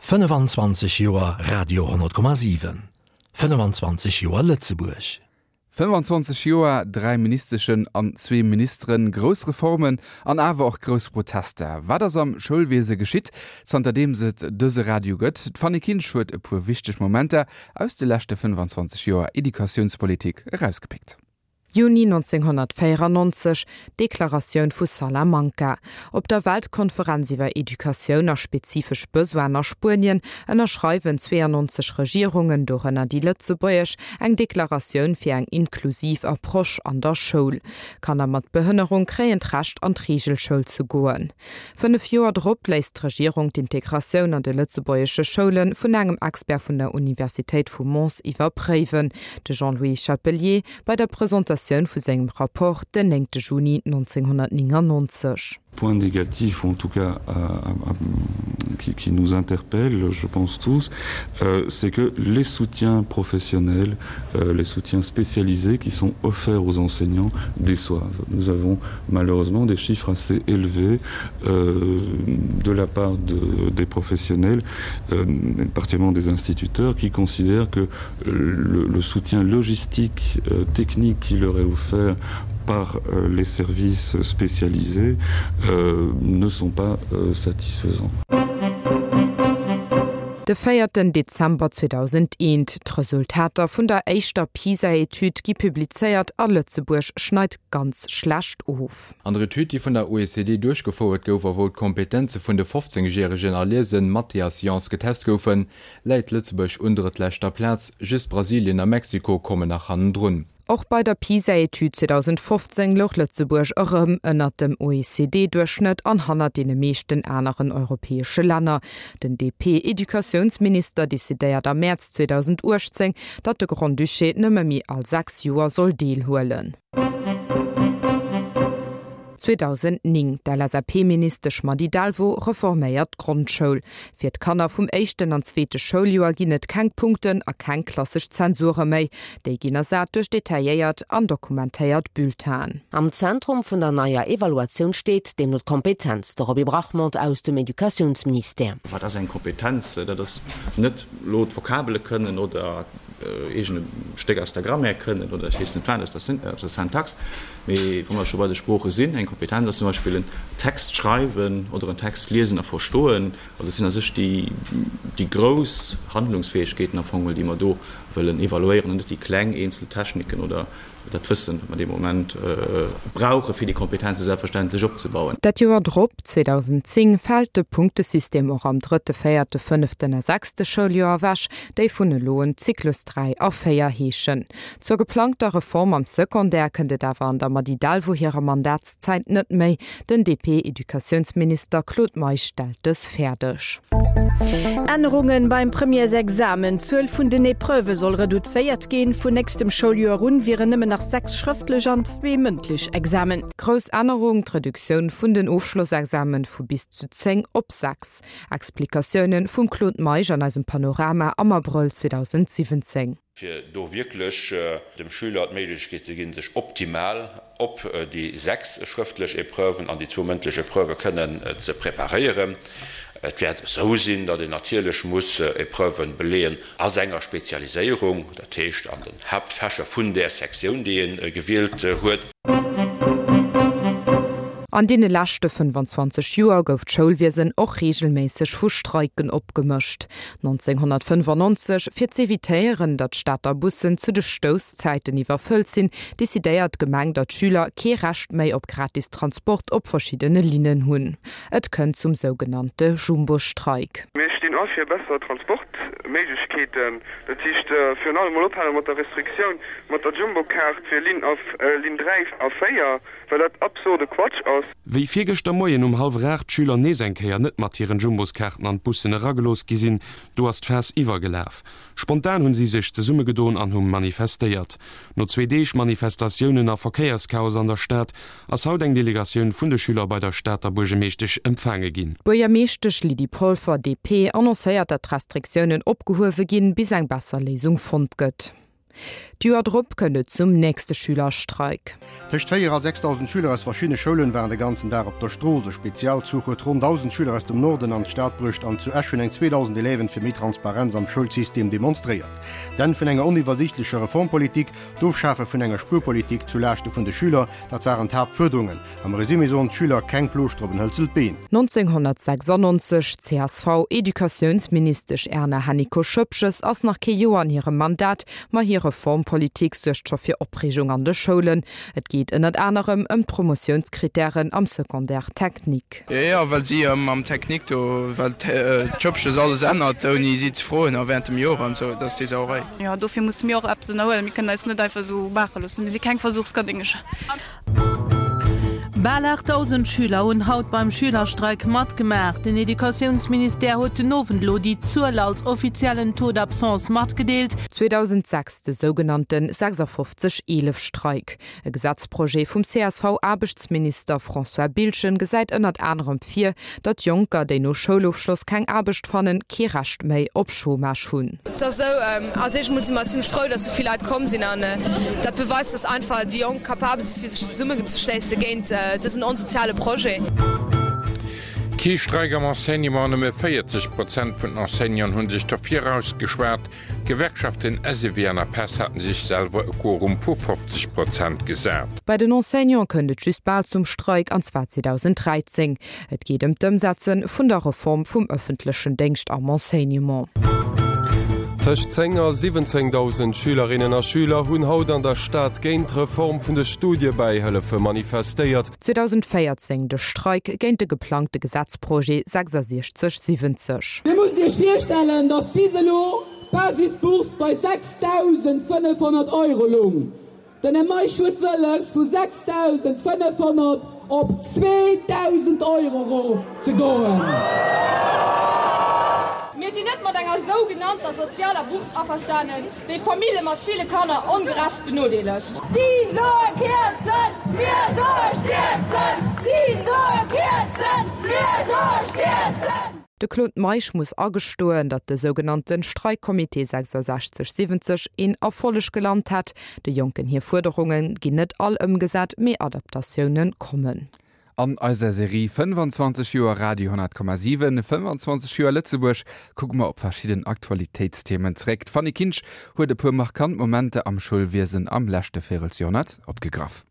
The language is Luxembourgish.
25 Joer Radio 10,7, 25 Joer Lëtzebuerg. 25 Joer, 3 Ministeschen an zwee Ministeren, grouss Reformen an awer och grouss Protester. Wat ass am Schoulwiese geschitt, zanterdeems et dëse Radio gëtt? D'Fanny Kinsch huet e puer wichteg Momenter aus de leschte 25 Joer Educatiounspolitik erausgepickt. Juni 1994, Deklaratioun vu Salamanca. Op der Weltkonferenz iwwer Educatioun a spezifesch Besoinen a Spuenien ënnerschreiwen 92 Regierungen, dorënner déi lëtzebuergesch, eng Deklaratioun fir eng inklusiv Approche an der Schoul. Kanner mat Behënnerung kréien d'Recht an d'Reegelschoul ze goen. 5 Joer drop léisst d'Regierung d'Integratioun an de lëtzebuergesche Schoule vun engem Expert vun der Universitéit vu Mons iwwerpréiwen, de Jean-Louis Chapelier, bei der Presentatioun vu sengem Rapport den 9 Juni 1999. Point négatif ou en tout cas à, à, à, qui, qui nous interpelle, je pense tous, euh, c'est que les soutiens professionnels, euh, les soutiens spécialisés qui sont offerts aux enseignants déçoivent. Nous avons malheureusement des chiffres assez élevés euh, de la part de, des professionnels, euh, particulièrement des instituteurs, qui considèrent que le, le soutien logistique euh, technique qui leur est offert par euh, les services spécialisés euh, ne sont pas euh, satisfaisants. De véierten Dezember 2001, D'Resultater vun der éischter PISA-Etüd gi publizéiert a Lëtzebuerg schneit ganz schlecht of. An der Etüd, déi vun der OECD duerchgefouert gouf a wou d'Kompetenze vun de 15 Järegen a Liesen, Mathé a Sciences getest goufen, läit Lëtzebuerg un drëttleschter Plaz, just Brasilien a Mexiko kommen nach hannendrun. Och bei der PISA-Etüd 2015 louch Lëtzebuerg erëm ënnert dem OECD-Duerchschnëtt an hannert deene meeschten aneren europäesche Länner. Den DP-Educatiounsminister decidéiert am Mäerz 2018, datt de Grand-Duché nëmme méi all 6 Joer soll deelhuelen. 2009, D'LSAP-Ministesch Mady Delvaux reforméiert d'Grondschoul. Fir d'Kanner vum éischten an zweete Schouljoer ginn et keng Punkten a keng klassesch Zensure méi. Déi ginn ersat duerch detailléiert an dokumentéiert Bulletinen. Am Zentrum vun der neier Evaluatioun steet deemno d'Kompetenz. De Roby Brachmond aus dem Educatiounsministère. Wat ass eng Kompetenz? Dat ass net elo d'Vokabele kënnen oder eegene Stéck aus der Grammaire kënnen oder ech weess net wat aus der Syntax. Mee wa mer scho bei de Sprooche sinn, eng Kompetenz ass zum Beispill en Text schreiwen oder en Text liesen a verstoen. Also et sinn a sech déi, déi grouss Handlungsfäegkeeten am Fong, déi mer do wëllen evaluéieren an net déi kleng eenzel Techniken oder dat Wëssen, wat mer dee Moment brauchen, fir déi Kompetenze selbstverständlech opzebauen. Dat Joer drop, 2010, fält de Punktesystem och am drëtte, véierte, fënneften a sechste Schouljoer ewech, déi vun elo un Zyklus 3 a 4 heeschen. Zur geplangter Reform am Secondaire kënnt et awer an der Mady Delvaux hirer Mandatszäit net méi. Den DP-Educatiounsminister Claude Meisch stellt dës fäerdeg. Ännerungen beim Premièresexamen, D'Zuel vun den Epreuvë soll reduzéiert ginn. Vun nächstem Schouljoer un wieren nëmmen nach 6 schrëftlech an zwee mëndlech Examen. Grouss Ännerung, D'Reduktioun vun den Ofschlossexamen vu bis zu 10 op 6. Explikatiounen vum Claude Meisch an eisem Panorama am Abrëll 2017. Fir do wierklech dem Schüler d'Méiglechkeet ze ginn, sech optimal op déi 6 schrëftlech Epreuven an déi zwou mëndlech Epreuvë kënnen ze preparéieren. Et wäert esou sinn, datt een natierlech muss Epreuve beleeën a senger Spezialiséierung, dat heescht an den Haaptfächer vun där Sektioun, déi ee gewielt huet. An deene leschte 25 Joer gouf d'Schoulwiesen och reegelméisseg vu Streiken opgemëscht. 1995, fir z'evitéieren, datt d'Stater Bussen zu de Stousszäiten iwwerfëllt sinn, decidéiert d'Gemeng, datt d'Schüler kee Recht méi op gratis Transport op verschiddene Linnen hunn. Et kënnt zum sougenannte Jumbo-Streik. Mir stinn a fir besser Transportméiglechkeeten, dat heescht virun allem mol ophale mat der Restriktioun mat der Jumbo-Kaart fir Linn a Linn 3 a 4, well dat absurde Quatsch ass. Wéi virgëschter Moien um hallwer 8 d'Schüler nees eng Kéier net mat hiren Jumboskaarten an d'Bussen eragelooss gi sinn, do ass d'Faass iwwergelaf. Spontan hunn si sech zesummegedoen an hu manifestéiert. No zwee Deeg Manifestatiounen a Verkéierschaos an der Stad ass haut eng Delegatioun vun de Schüler bei der Stater Buergemeeschtesch empfaange ginn. D'Buergermeeschtesch Lydie Polfer, DP, annoncéiert, datt d'Restriktiounen opgehuewe ginn, bis eng besser Léisung fonnt gëtt. D'Joer drop kënnt et zum nächste Schülerstreik. Tëscht 4 a 6.000 Schüler aus verschiddene Schoulen waren de ganzen Dag op der Strooss. E Spezialzuch huet ronn 1.000 Schüler aus dem Norden an d'Stad bruecht an zu Esch hunn eng 2.000 Élèven fir méi Transparenz am Schoulsystem demonstréiert. D'Enn vun enger oniwwersiichtlecher Reformpolitik, d'Ofschafe vun enger Spuerpolitik zu Laaschte vun de Schüler, dat waren d'Haaptfuerderungen. Am Resumé soen d'Schüler, keng Plooschter op en hëlzelt Been. 1996, CSV-Educatiounsministesch Erna Hennicot-Schoepges ass nach kee Joer an hirem Mandat, ma hir Reformpolitik suergt scho fir Opreegung an de Schoulen. Et geet ënnert anerem ëm d'Promotiounskrittären am Secondaire technique. Jo jo, well si am Technique do, well d'Schëppches alles ännert ouni si ze froen a während dem Joer an esou, dat ass déi Sauerei. Jo, dofir musse mir och eppes ënnerhuelen. Mir kënnen eis net einfach esou maache loossen. Mir si keng Versuchskanéngercher. Bal 8.000 Schüler hunn haut beim Schülerstreik matgemaach. Den Educatiounsministère huet den Owend elo déi Zuel als offiziellen Taux d'absence matgedeelt. 2006 de sougenannte 56 11 Streik. E Gesetzprojet vum CSV-Aarbechtsminister François Biltgen gesäit ënnert anerem vir, datt Jonker, déi no Schoulofschloss keng Aarbecht fannen, kee Recht méi op Chômage hunn. Et ass esou, als éischt emol si mer zimlech frou, datt esou vill Leit komm sinn an dat beweist, datt einfach déi Jonk capabel si fir sech zesummenzeschléisse géint dësen onsoziale Projet. Kee Streik am Enseignement, Nëmme 40 Prozent vun den Enseignanten hu sech derfir ausgeschwat. D'Gewerkschaften SEW an APESS haten sech selwer e Quorum vu 50 Prozent gesat. Bei den Enseignante kënnt et just bal zum Streik, an zwar 2013. Et geet ëm d'Ëmsetze vun der Reform vum ëffentlechen Déngscht am Enseignement. Tëscht 10 a 17.000 Schülerinnen a Schüler hunn haut an der Stad géint d'Reform vun de Studiebäihëllefe manifestéiert. 2014, De Streik géint de geplangte Gesetzprojet 6670. Dir musst Iech virstellen, dass bis elo d'Basisbourse bei 6.500 Euro lung. Den Här Meisch huet wëlles, vu 6.500 op 2.000 Euro erof ze goen. Mir sinn net mat enger sougenannter sozialer Bourse averstanen, déi Famille mat ville Kanner ongerecht benodeelegt. Si soe kierzen, mir soe stierzen! Si soe kierzen, mir soe stierzen! De Claude Meisch muss agestoen, datt de sougenannte Streikcomité 66 70 een Erfolleg gelant hätt. De Jonken hir Fuerderunge ginn net all ëmgesat, mee Adaptatioune kommen. An eiser Serie 25 Joer Radio 10,7, 25 Joer Lëtzebuerg kucke mer op verschidden Aktualitéitsthemen zeréck. D'Fanny Kinsch huet e puer markant Momenter am Schoulwiesen am leschte Véirelsjoerhonnert opgegraff.